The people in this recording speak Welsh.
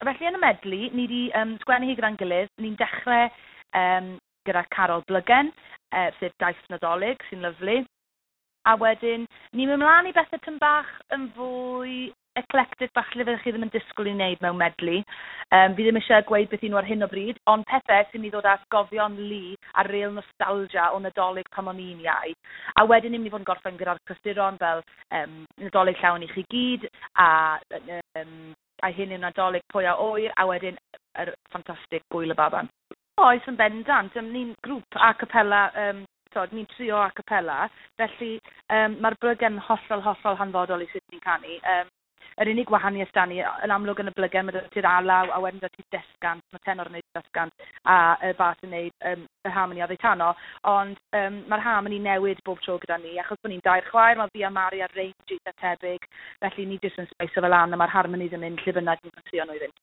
Felly yn y medley, ni wedi sgwennu hi gyda'n gilydd. Ni'n dechrau gyda Carol Blygen, sef Daith Nadolig, sy'n lyfli. A wedyn, ni'n mynd mlaen i bethau tyn bach yn fwy eclectic bach lle fyddwch chi ddim yn disgwyl i wneud mewn medley. Fi ddim eisiau gweud beth nhw ar hyn o bryd, ond pethau sy'n mynd i ddod â atgofion lu a real nostalgia o Nadolig pan o'n i'n iau. A wedyn ni'n mynd i fod yn gorffen gyda'r clasuron fel Nadolig Llawen i chi gyd, a hyn yw Nadolig pwy a ŵyr, a wedyn yr ffantastig Gwyl y Baban. Oes, yn bendant. Ni'n grŵp a cappella, tod, ni'n trio a cappella, felly mae'r blygen hollol, hollol hanfodol i sut ni'n canu. Yr unig wahaniaeth da ni, yn amlwg yn y blygen, mae 'da ti'r alaw, a wedyn 'da ti desgant, mae tenor yn neud desgant, a y bas yn neud y harmony oddi tano, ond mae'r harmony newid bob tro gyda ni, achos bod ni'n dair chwaer, mae fi a Mari ar range eitha tebyg, felly ni jyst yn sbeiso fel lan, a mae'r harmonies yn mynd lle bynnag ni'n ffansio nhw i fynd.